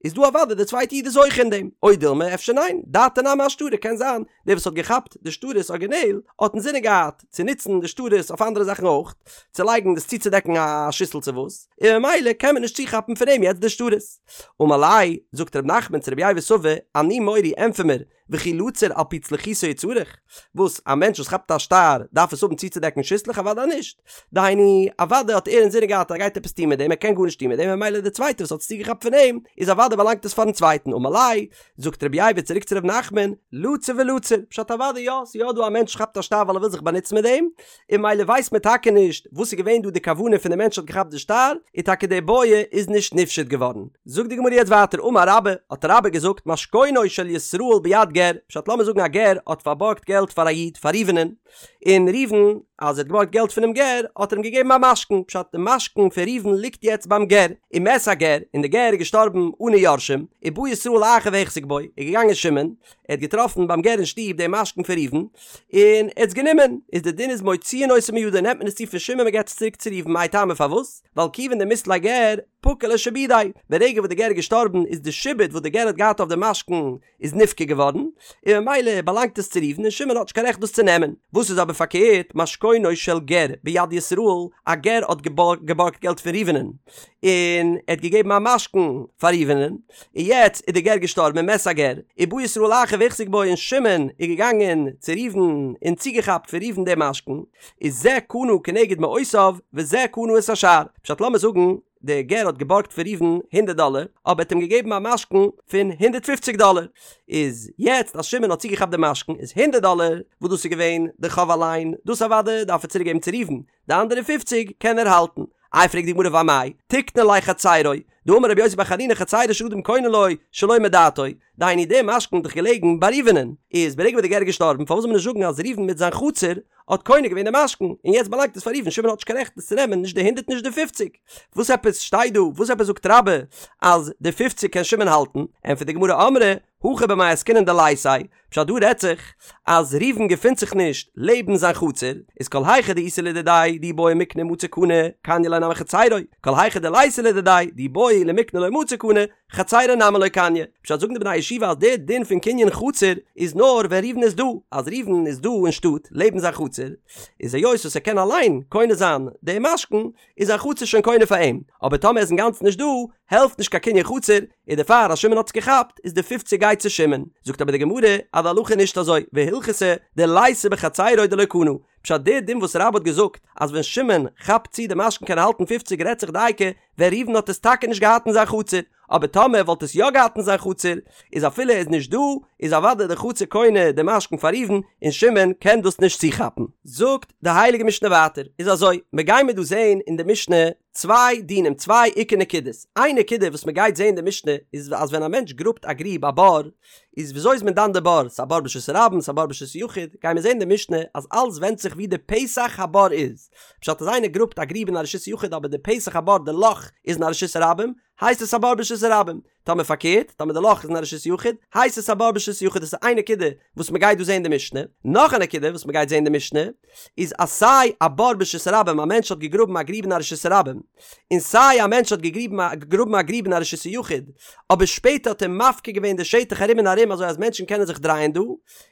איז דא אוודאי די צווייטע איד איז זוכה אין דעם, או דילמא אפשר ניין, דעתיה נמי אשטרא קען זיין דער וואס האט געכאפט די שטרות ארגינעל האט אינזינען געהאט צו נוצן די שטרות אויף אנדערע זאכן אויך, צו לייגן דאס צוצודעקן א שיסל צו וואס, און ממילא קען מען נישט צוכאפן פון אים יעצט די שטרות. אמר ליה, זאגט ר' נחמן צו רבי ייבא סבא, אני מורי ענטפער מיר, וכי לצור על פי צלוחיתו הוא צריך? וואס, א מענטש וואס כאפט א שטר דארף עס האבן צוצודעקן שיסלעך? אוודאי נישט. דהיינו, אוודאי האט ער אינזינען געהאט אז ער גייט עפעס טון מיט דעם, ער קען גארנישט טון מיט דעם, ממילא דער צווייטער וואס האט עס צוגעכאפט פון אים, איז אוודאי באלאנגט עס פארן צווייטן, אמר ליה, זאגט רבי ייבא צוריק צו ר' נחמן, לצור ולצור, פשט אוודאי יא, ס'איז יא דא א מענטש כאפט א שטר ווייל ער וויל זיך באנוצן מיט דעם, און ממילא ווייסט מען טאקע נישט וואס איז געווען דא די כוונה פון די מענטש האט געכאפט די שטר, און טאקע די בעיא איז נישט נפשט געווארן. זאגט די גמרא יעצט ווייטער אמר רבה, האט רבה געזאגט משכונו של ישראל ביד גר, פשט לאמיר זאגן א גר האט פארבארגט געלט פאר א איד פאר ראובנ'ען, און ראובן אז ער האט געבארגט געלט פונעם גר האט ער אים געגעבן א משכון, פשט די משכון פון ראובן ליגט יעצט ביים גר, ומת הגר, און די גר איז געשטארבן אנע יורשים, ובא ישראל אחר והחזיק בו, איז געגאנגען שמעון, ער האט געטראפן ביים גר אין שטוב דעם משכון פון ראובן, און ער האט עס גענומען, איז די דין איז מוציאין אותו מידו נעמט מען עס צו פון שמעון מען געבט עס צוריק צו ראובן מאי טעמא פארוואס? ווייל כיוון דמית ליה גר פקע ליה שעבודיה, ברגע וואס די גר איז געשטארבן איז די שעבוד וואס די גר האט געהאט אויף די משכון איז נפקע געווארן, און ממילא באלאנגט עס צו ראובן און שמעון האט נישט קיין רעכט דאס צו נעמען. וואס איז אבער פארקערט, משכונו של גר ביד ישראל, א גר האט געבארגט געלט פון ראובנ'ן, און ער האט געגעבן א משכון פאר ראובנ'ן, און יעצט איז דער גר געשטארבן ומת הגר, ובא ישראל אחר והחזיק בו און שמעון איז געגאנגען צו ראובן און צוגעכאפט פון ראובן דעם משכון, איז זה קנה כנגד מעותיו וזה קנה את השאר. פשט לאמיר זאגן, דער גר האט געבארגט פון ראובן הונדערט דאלער, אבער האט אים געגעבן א משכון פון הונדערט פופציג דאלער, איז יעצט אז שמעון האט צוגעכאפט די משכון איז הונדערט דאלער וואס דאס איז געווען די חוב אליין, דאס אוודאי דארף ער צוריק געבן צו ראובן, די אנדערע פופציג קען ער האלטן. איי פרעגט די גמרא ואמאי תיקני ליה חצירו, דאמר רבי יוסי בר חנינא חצירו של אדם קונה לו שלא מדעתו, דהיינו די משכון איז דאך געלעגן ביי ראובנ'ען, איז ברגע וואס די גר איז געשטארבן פארוואס זאל מען נישט זאגן אז ראובן מיט זיין חצר האט קונה געווען די משכון, און יעצט באלאנגט עס פאר ראובן, שמעון האט נישט קיין רעכט עס צו נעמען נישט די הונדערט נישט די פופציג. וואס עפעס שטייט דא, וואס עפעס זאגט רבה אז די פופציג קען שמעון האלטן, ענטפערט די גמרא אמרי הכא במאי עסקינן דליתיה, פשט דא רעדט זיך אז ראובן געפינט זיך נישט לעבן זיין חצר, איז כל היכא דאיתיה לדידיה דאי בעי מיקנא מצי קני קניא ליה נמי חצירו, כל היכא דליתיה לדידיה דאי בעי למיקני לא מצי קני חצירו נמי לא קניא. פשט זאגן די בני הישיבה אז דער דין פון קנין חצר איז נאר ווען ראובן איז דא, אז ראובן איז דא אין שטאט לעבן זיין חצר, איז היות וואס ער קען אליין קונה זיין דעם משכון, איז זיין חצר שוין קונה פאר אים, אבער טאמער ער איז אינגאנצן נישט דא, העלפט נישט קיין קנין חצר, און דערפאר אז שמעון האט עס געכאפט, איז די פופציג גייט צו שמעון. זאגט אבער די גמרא אז די הלכה איז נישט אזוי, והלכתא דליתיה בחצירו דלא קנה, פשט דער דין וואס רבה האט געזאגט אז ווען שמעון כאפט צו די משכון קען ער האלטן פופציג רעדט זיך דייקא ווען ראובן האט עס טאקע נישט געהאט אין זיין חצר, אבער טאמער ער וואלט עס יא געהאט אין זיין חצר, איז אפילו ער איז נישט דא, איז אוודאי די חצר קונה די משכון פאר ראובן, און שמעון קען דאס נישט צוכאפן. זאגט די הייליגע משנה ווייטער, איז אזוי, מיר גיימיר דא זעהן אין די משנה צוויי דינים, צוויי עיקר נקודות, איין נקודה וואס מען גייט זעהן אין די משנה איז אז ווען א מענטש גראבט א גריב א בור, איז וויאזוי איז מען דן די בור, ס'איז א בור ברשות הרבים, ס'איז א בור ברשות היחיד, גיימיר זעהן אין די משנה אז אלס ווענדט זיך ווי די פתח הבור איז, פשט אז איינער גראבט א גריב אין א רשות היחיד אבער די פתח הבור די לאך איז אין א רשות הרבים, הייסט עס א בור ברשות הרבים. טאמער פארקערט, טאמער די לאך איז אין א רשות יחיד, הייסט עס א בור ברשות יחיד. דאס איז איין נקודה וואס מען גייט דא זען אין די משנה. נאך א נקודה וואס מען גייט זען אין די משנה, איז אז סיי א בור ברשות הרבים, א מענטש האט געגראבן א גריב אין א רשות הרבים, און סיי א מענטש האט געגראבן א גריב אין א רשות היחיד, אבער שפעטער האט ער מפקיר געווען די שטח ארום און ארום אזוי אז מענטשן קענען זיך דרייען דא,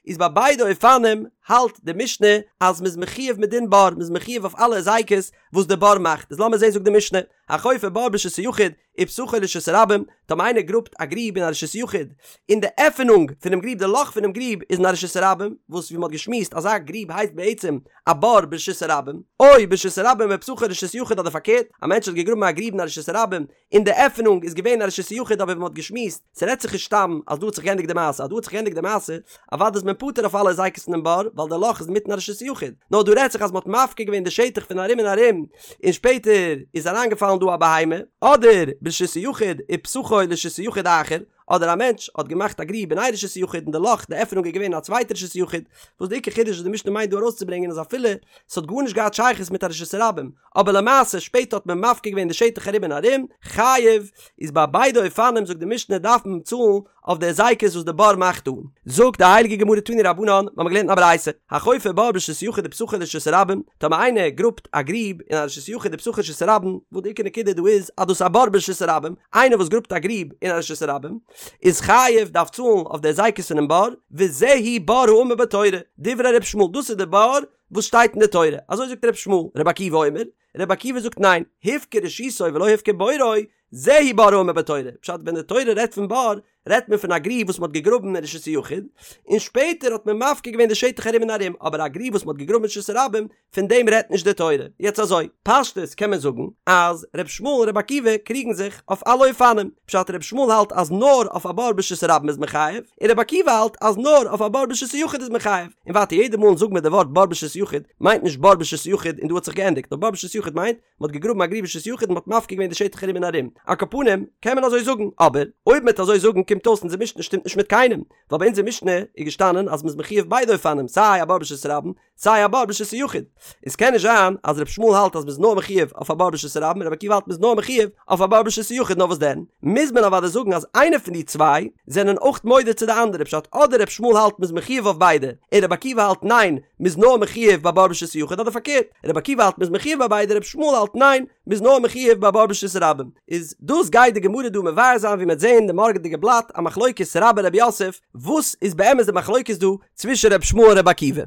איז ביי ביידע אופנים האלט די משנה אז מען איז מחויב מדין בור, מען איז מחויב אויף אלע היזקות וואס די בור מאכט. איז לאמיר זען זאגט די משנה, החופר בור ברשות היחיד, ופתחו לרשות הרבים, טאמער איינער גראבט א גריב אין א רשות יחיד, און די עפענונג פונעם גריב, די לאך פונעם גריב איז אין א רשות הרבים, וואס ווי מען האט געשמועסט אזא גריב הייסט בעצם א בור ברשות הרבים, או ברשות הרבים ופתחו לרשות יחיד אדער פארקערט, א מענטש האט געגראבן א גריב אין א רשות הרבים, און די עפענונג איז געווען אין א רשות יחיד אבער ווי מען האט געשמועסט, ס'רעדט זיך נישט סתם אז דא האט זיך געענדיגט די מעשה, אז דא האט זיך געענדיגט די מעשה, אוודאי איז מען פטור אויף אלע היזקות פונעם בור, ווייל די לאך איז אינמיטן א רשות יחיד, נאר דא רעדט זיך אז מען האט מפקיר געווען די שטח פון ארום און ארום, און שפעטער איז אריינגעפאלן דא א בהמה, אדער ברשות היחיד ופתחו לרשות היחיד אחר, אדער א מענטש האט געמאכט א גריב אין איין רשות היחיד און די לאך, די עפענונג איז געווען אין א צווייטע רשות היחיד, וואס די עיקר חידוש וואס די משנה מיינט דא ארויסצוברענגען איז אפילו ס'האט גארנישט געהאט שייכות מיט א רשות הרבים, אבער למעשה שפעטער האט מען מפקיר געווען די שטח ארום און ארום, חייב, איז ביי ביידע אופנים זאגט די משנה דארף מען צאלן אויף די היזקות וואס די בור מאכט אן. זאגט די הייליגע גמרא תנו רבנן, מיר האבן געלערנט אין א ברייתא, החופר בור ברשות היחיד ופתחו לרשות הרבים, טאמער איינער גראבט א גריב אין א רשות היחיד ופתחו לרשות הרבים, וואס די עיקר נקודה דא איז אז דאס איז א בור ברשות הרבים, איינער וואס גראבט א גריב אין א רשות הרבים, איז חייב, דארף צאלן אויף די היזקות פונעם בור, וזהו בור האמור בתורה, דברי ר' ישמעאל, דאס איז די בור וואס שטייט אין די תורה, אזוי זאגט ר' ישמעאל, ר' עקיבא אומר, ר' עקיבא זאגט ניין, הפקיר רשותו ולא הפקיר בורו, זהו בור האמור בתורה, פשט ווען די תורה רעדט פון בור, רעדט מען פון א גריב וואס מען האט געגראבן אין רשות היחיד, און שפעטער האט מען מפקיר געווען די שטח ארום און ארום, אבער א גריב וואס מען האט געגראבן אין רשות הרבים, פון דעם רעדט נישט די תורה. יעצט אזוי, פשטות קען מען זאגן אז ר' ישמעאל און ר' עקיבא קריגן זיך אויף אלע אופנים, פשט ר' ישמעאל האלט אז נאר אויף א בור ברשות הרבים איז מען חייב, און ר' עקיבא האלט אז נאר אויף א בור ברשות היחיד איז מען חייב. און ווייטער יעדע מאל זאגן מיר די ווארט בור ברשות היחיד מיינט נישט בור ברשות היחיד און דא האט זיך געענדיגט, נאר בור ברשות היחיד מיינט מען האט געגראבן א גריב ברשות היחיד און מען האט מפקיר געווען די שטח ארום און ארום. על כל פנים, קען מען אזוי זאגן, אבער אויב מען וועט אזוי זאגן קומט אויס אונזער משנה שטימט נישט מיט קיינעם, ווייל ביי אונזער משנה איז געשטאנען אז מען איז מחויב ביידע אופנים סיי א בור ברשות הרבים סיי א בור ברשות היחיד. עס קען נישט זיין אז ר' ישמעאל האלט אז מען איז נאר מחויב אויף א בור ברשות הרבים און ר' עקיבא האלט מען איז נאר מחויב אויף א בור ברשות היחיד נאר וואס דען מוז מען אוודאי זאגן אז איינער פון די צוויי זענען אויך מודה צו די אנדערע פשט אדער ר' ישמעאל האלט מען איז מחויב אויף ביידע און ר' עקיבא האלט ניין מען איז נאר מחויב ביי בור ברשות היחיד אדער פארקערט ר' עקיבא האלט מען איז מחויב ביי ביידע ר' ישמעאל האלט ניין מען איז נאר מחויב ביי בור ברשות הרבים איז דאס גייט די גמרא דא מבאר זיין ווי מען וועט זעהן אין די מארגענדיגע בלאט א מחלוקת רבה רב יוסף וואס איז באמת די מחלוקת דא צווישן ר' ישמעאל און ר' עקיבא.